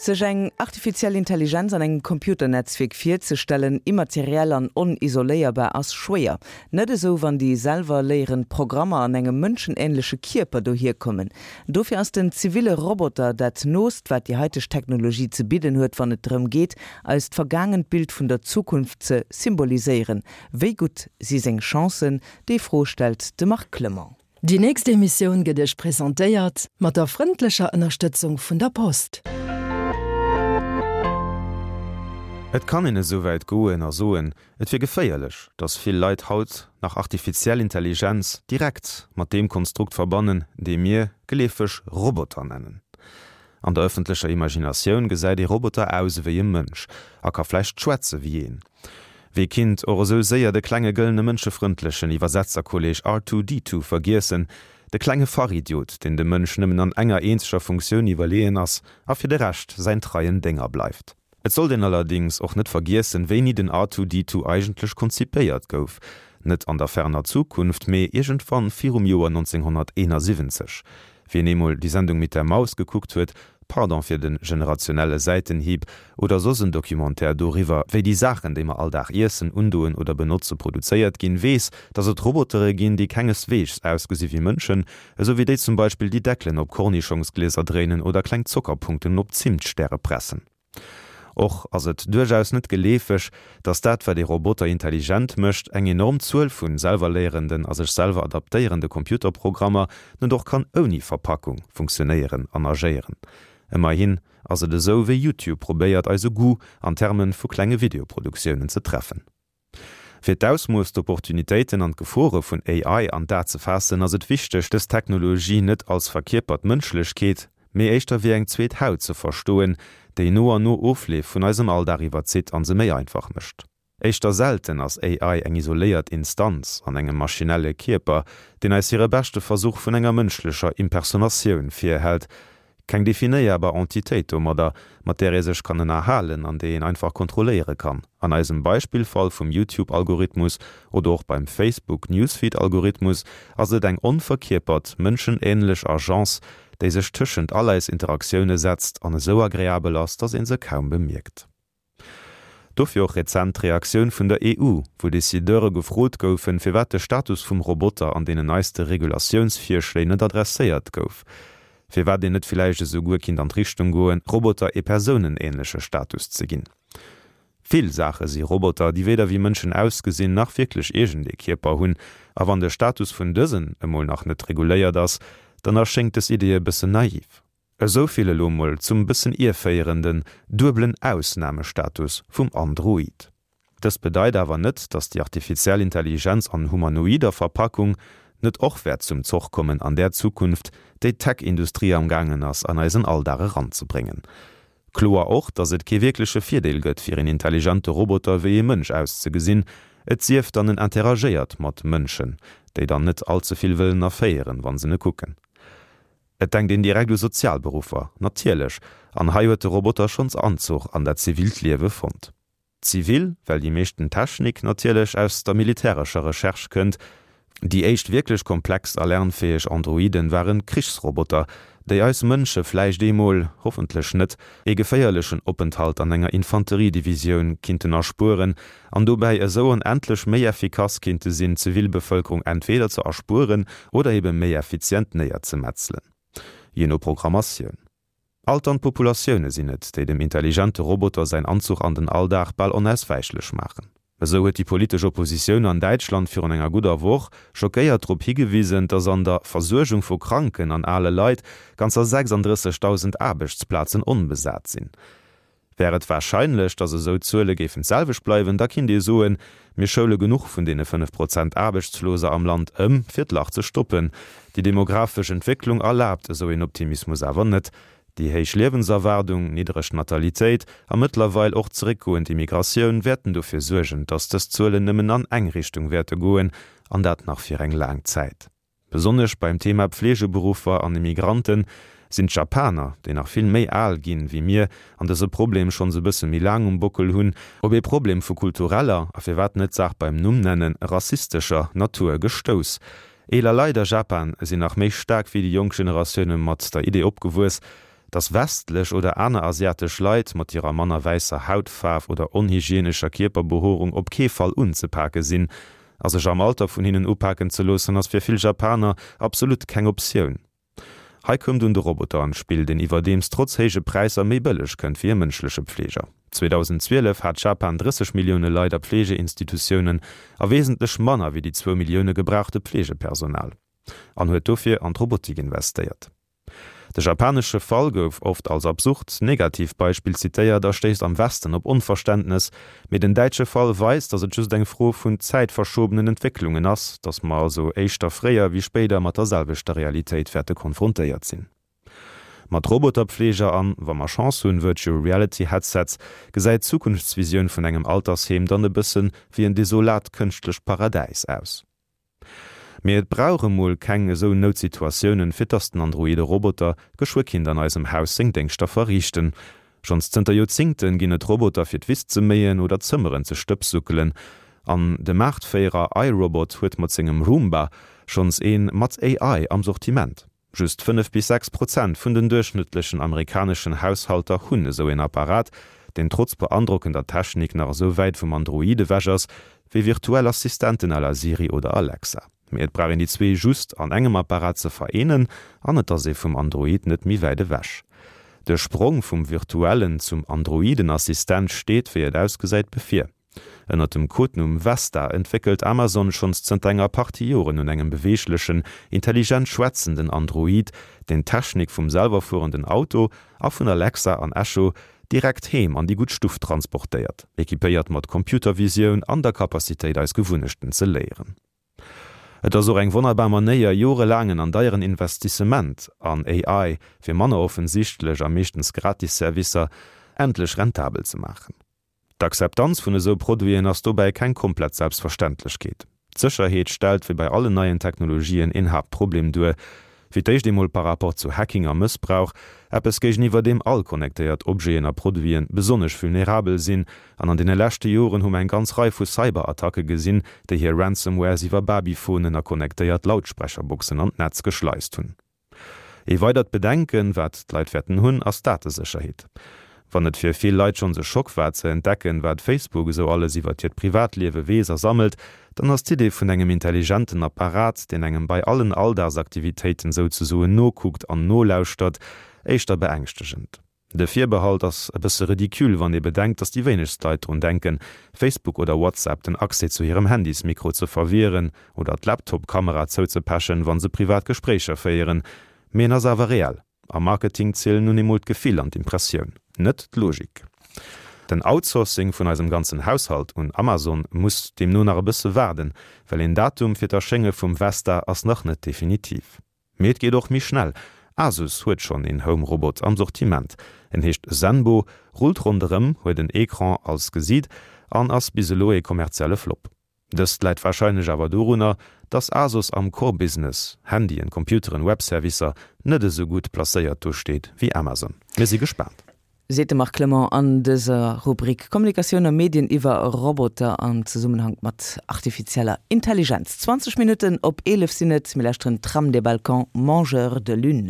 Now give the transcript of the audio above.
Sech eng artifiziell Intelligenz an engem Computernetzwierk virzestellen, immateriell an onisoléierbar, ass schwéier. Net esou, wann déi selwer léierend Programmer an engem mënschenähnleche Kierper dohierkommen. Dofir ass den ziville Roboter dat noost, wat déi haiteg Technologie ze bidden huet, wann et drëm geet, eist vergaangent Bild vun der Zukunft ze symboliséieren. Wéi gutt si seng Chancen? Déi Fro stellt de Marc Clement. Déi nächst Emissioun gëtt Iech presentéiert mat der frëndlecher Ënnerstëtzung vun der Post. Et kann een esouwäit goen a soen, et wier geféierlech, datt vill Leit haut nach artifiziell Intelligenz direkt mat deem Konstrukt verbannen, dee mir geleefeg Roboter nennen. An der ëffentlecher Imaginatioun gesäit ee Roboter aus ewéi e Mënsch a ka vläicht schwätze wéi een. Wee kinnt och esou séier de klenge gëllene mënschefrëndlechen Iwwersetzerkolleg R2-D2 vergiessen, de klenge Fachidiot, deen dem Mënsch nëmmen an enger eenzeger Funktioun iwwerleeën ass a fir de Rescht säin treien Dénger bleift. Et sollt een allerdings och net vergiessen, wéini den R2-D2 eigentlech konzipéiert gouf, net an der ferner Zukunft, mee iergendwann virum Joer 1971. Wien eemol Die Sendung mit der Maus gekuckt huet, pardon fir den generationelle Säitenhieb, oder soss en Documentaire doriwwer, wéi déi Saachen, déi mer all Dag iessen, undoen oder benotze produzéiert ginn, weess, dass et Robotere ginn, déi kengesweegs ausgesi wéi Mënschen, esou wéi déi zum Beispill déi Deckelen op Kornischongsglieser dréinen oder kleng Zockerpunkten op Zimtstäre pressen. Och ass et duerchaus net geleefeg, datt dat wat ee Roboter intelligent mécht, eng enorm Zuel vu selwerléierenden a sech selwer adaptéierende Computerprogrammer, net och kann ouni Verpackung funktionéieren an agéieren. Ëmmerhin ass et esou wéi YouTube probéiert eise Goût an Terme vu klenge Videoproduktiounen ze treffen. Fir d'Ausmooss, d'Opportunitéiten an d'Gefore vun AI an d'A ze faassen, ass et wichteg, dës Technologie net als verkierpert Mënschlechkeet, mee éischter wéi eng zweet Haut ze verstoen, déi no an no Ofleef vun eisem Alldag iwwerzitt an se méi einfach mécht. Éischter selten ass AI eng isoléiert Instanz an engem maschinelle Kierper, deen eis hire beschte Versuch vun enger mënschlecher Impersonatioun virhält, Keng definéierbar Entitéit domadder, mat där ee sech kann ënnerhalen an déi een einfach kontrolléiere kann. An eisem Beispillfall vum YouTube-Algorithmus oder och beim Facebook-Newsfeed-Algorithmus ass et eng onverkierpert, mënschenähnlech Agence, déi sech tëschent all eis Interaktioune setzt an esou agreabel ass, dass een se kaum bemierkt. Dofir och rezent d'Reaktioun vun der EU, wou Decideure gefrot goufen, firwat de Status vum Roboter an deenen neiste Regulatiounsvirschléi net adresséiert gouf. Firwat een net villäicht esouguer kinnt an d'Richtung goen, Roboter ee persounenähnleche Status ze ginn. Vill Saache si Roboter, déi weder wéi Mënschen ausgesinn, nach wierklech iergendee Kierper hunn. A wann de Status vun dësen emol nach net reguléiert ass, dann erschéngt dës Idee e bëssen naiv. Esou vill elo mol zum bëssen ierféierenden duebelen Ausnamestatus vum Android. Dëst bedeit awer net, dass déi artifiziell Intelligenz an humanoider Verpackung net och wäert zum Zoch kommen an där Zukunft, déi d'Tech-Industrie am gaangen ass an eisen Alldag eranzebréngen. Kloer och, dass et kee wierkleche Virdeel gëtt fir een intelligente Roboter wéi ee Mënsch auszegesinn, et sief dann en interagéiert mat Mënschen, déi dann net all ze vill wëllen erféieren, wann se e kucken. Et denkt een direkt u Sozialberuffer, natierlech, an hei huet de Roboter schonns Anzuch an dat zivilt Liewe fonnt. Zivil, well déi meeschten Technik natierlech aus der militärescher Recherche kënnt. Déi éischt wierklech komplex a lernfäeg Androiden waren Krichsroboter, déi eis Mënsche vläicht eemol, hoffentlech net, ee geféierlechen Openthalt an enger Infanteriedivisioun kinnten erspueren an dobäi esou onendlech méi effikass kinnte sinn, d'Zivilbevëlkerung entweder ze erspueren oder ebe méi effizient néierzemetzelen, jee no Programmatioun. Alternd Populatioune sinn et, déi dem intelligente Roboter säin Anzuch an den Alldag bal onauswäichlech maachen. Esou huet déi politesch Oppositioun an Däitschland virun enger gudder Woch schockéiert drop higewisen, datt an der Versuergung vu kranken an ale Leit ganzer 36.000 Aarbechtsplazen onbesat sinn. Wär et warscheinlech, datt esou Zuele géifen d'selwecht bleiwen, da kinnt ee soen, mir schoule genuch vun deene 5 Prozent Aarbechtsloser am Land ëm, fir d'Lach ze stoppen. Déi demographesch Entwécklung erlaabt esou een Optimismus awer net. Déi héich Liewenserwaardung, niddereg Natalitéit a mëttlerweil och zeréckgoend Immigratioun wäerten dofir suergen, datt dës Zuelen nëmmen an eng Richtung wäerte goen, an dat nach fir eng laang Zäit. Besonnesch beim Thema Pflegeberuffer an Immigranten sinn d'Japaner, déi nach vill méi al ginn wéi mir an dëse Problem schonns e bësse méi laang um Bockel hunn, op ee Problem vu kultureller, a firwat net d'Saach beim Numm nennen, rassistescher Natur gestouss. Eeler Leit a Japan sinn nach méi staark wéi déi jonk Generatioune mat der Idee opgewuess, Dass westlech oder aner asiatesch Leit mat hirer manner wäisser Hautfaarf oder onhygienescher Kierperbehoerung op kee Fall unzepake sinn. A sech am Alter vun hinnen upaken ze loossen, ass fir vill Japaner absolut keng Optioun. Hei koum dunn de Roboter an d'Spill, deen iwwerdeems trotz héije Präisser méi bëlleg kënnt wéi e mënschleche Pfleger. 2012 hat Japan 30 Millioune Leit a Pflegeinstitutiounen a wesentlech manner wéi déi zwou Millioune gebrauchte Pflegepersonal, an huet dofir an d'Robotik investéiert. De japanesche Fall gouf oft als absurd Negativbeispill zitéiert a stéisst am Westen op Onverständnes, Mee den däitsche Fall weist, datt et just eng Fro vun zäitverschobenen Entwécklungen ass, datt mer also éischter fréier wéi spéider mat der selwechter Realitéit wäerte konfrontéiert sinn. Mat Roboterpfleger an, wa mer Chance hunn, Virtual Reality Headsets, gesäit d'Zukunftsvisioun vun engem Altersheem dann e bësse wéi en desolat kënschtlecht Paradäis aus. Mee et brauch emol keng esou Noutsituatiounen, fir dass den androide Roboter geschwë kinnt an eisem Haus seng Déngschter verriichten. Schonns zënter Joerzingten ginn et Roboter fir d'Wiss ze méien oder d'Zëmmeren ze stëbsuckelen. An de Maartféierer iRobot huet mat sengem Roomba schonns een mat AI am Sortiment. Just 5 bis 6 Prozent vun den duerchschnëttlechen amerikaneschen Haushalter hunn esou een Apparat, deen trotz beandrockender Technik nach esou wäit vum Android ewech ass, wéi virtuell Assistenten à la Siri oder Alexa. Mee et brauch een déi zwee just an engem Apparat ze vereenen an et ass ee vum Android net méi wäit ewech. De Sprong vum virtuellen zum androiden Assistent steet, wéi et ausgesäit, bevir. Ënnert dem Codenumm Vesta entwéckelt Amazon schonns zënter enger Partie Joren un engem beweeglechen, intelligent schwätzenden Android, deen d'Technik vum selwerfuerenden Auto a vun Alexa an Echo direkt heem an déi gutt Stuff transportéiert, equipéiert mat Computervisioun an der Capacitéit eis Gewunnechten ze léieren. Et ass och eng wonnerbar Manéier, jorelaangen an deieren Investissement an AI fir manner offensichtlech a meeschtens gratis Servicer endlech rentabel ze maachen. D'Akzeptanz vun esou Produiten ass dobäi keng komplett Selbstverständlechkeet. D'Sécherheet stellt, wéi bei allen neien Technologien, een Haaptproblem duer. Fir d'éischt eemol par rapport zu Hacking a Mëssbrauch, eppes géigeniwwer deem all connectéiert Objeten a Produiten besonnesch vulnerabel sinn. An an deene leschte Joren hu mer eng ganz Rei vu Cyberattacke gesinn, déi hir Ransomwares iwwer Babyphonen a connectéiert Lautsprecherboxen an d'Netz geschleist hunn. Ee weidert Bedenken, wat d'Leit wäerten hunn, ass d'Datesécherheet. Wann et fir vill Leit schonns e Schock war ze entdecken, wat Facebook esou alles iwwert hiert Privatliewe weess a sammelt, dann ass d'Idee vun engem intelligenten Apparat, deen engem bei allen Alldagsaktivitéiten souzesoen nokuckt an nolauschtert, éischter beängschtegend. De Virbehalt ass e bësse ridicule, wann ee bedenkt, datt déi wéinegst Leit drun denken, Facebook oder WhatsApp den Accès zu hirem Handysmikro ze verwieren oder d'Laptop-Kamera zouzepechen, wa se privat Gespréicher féieren. Mee en ass awer reell. Am Marketing zielen nun eemol d'Gefill an d'Impressioun, net d'Logik. Den Outsourcing vun eisem ganzen Haushalt un Amazon muss deemno nach e bësse waarden, well een Datum fir d'Erschénge vum Vesta ass nach net definitiv. Mee et geet och méi schnell, Asus huet schonn een Home Robot am Sortiment. En heescht Zenbo, rullt ronderëm, huet en Ecran als Gesiit an ass bis elo ee kommerzielle Flop. Dëst läit warscheinlech awer dorunner, dass Asus am Core Business, Handyen, Computeren, Webservicer, net esou gutt placéiert do steet wéi Amazon. Mir si gespaant. Seet de Marc Clement an dëser Rubrik Kommunikatioun a Medien iwwer Roboter am Zesummenhank mat artifizieller Intelligenz. 20 Minutten op 11 sinn et. Mir lauschteren Tram des Balkans, Mangeurs de lune.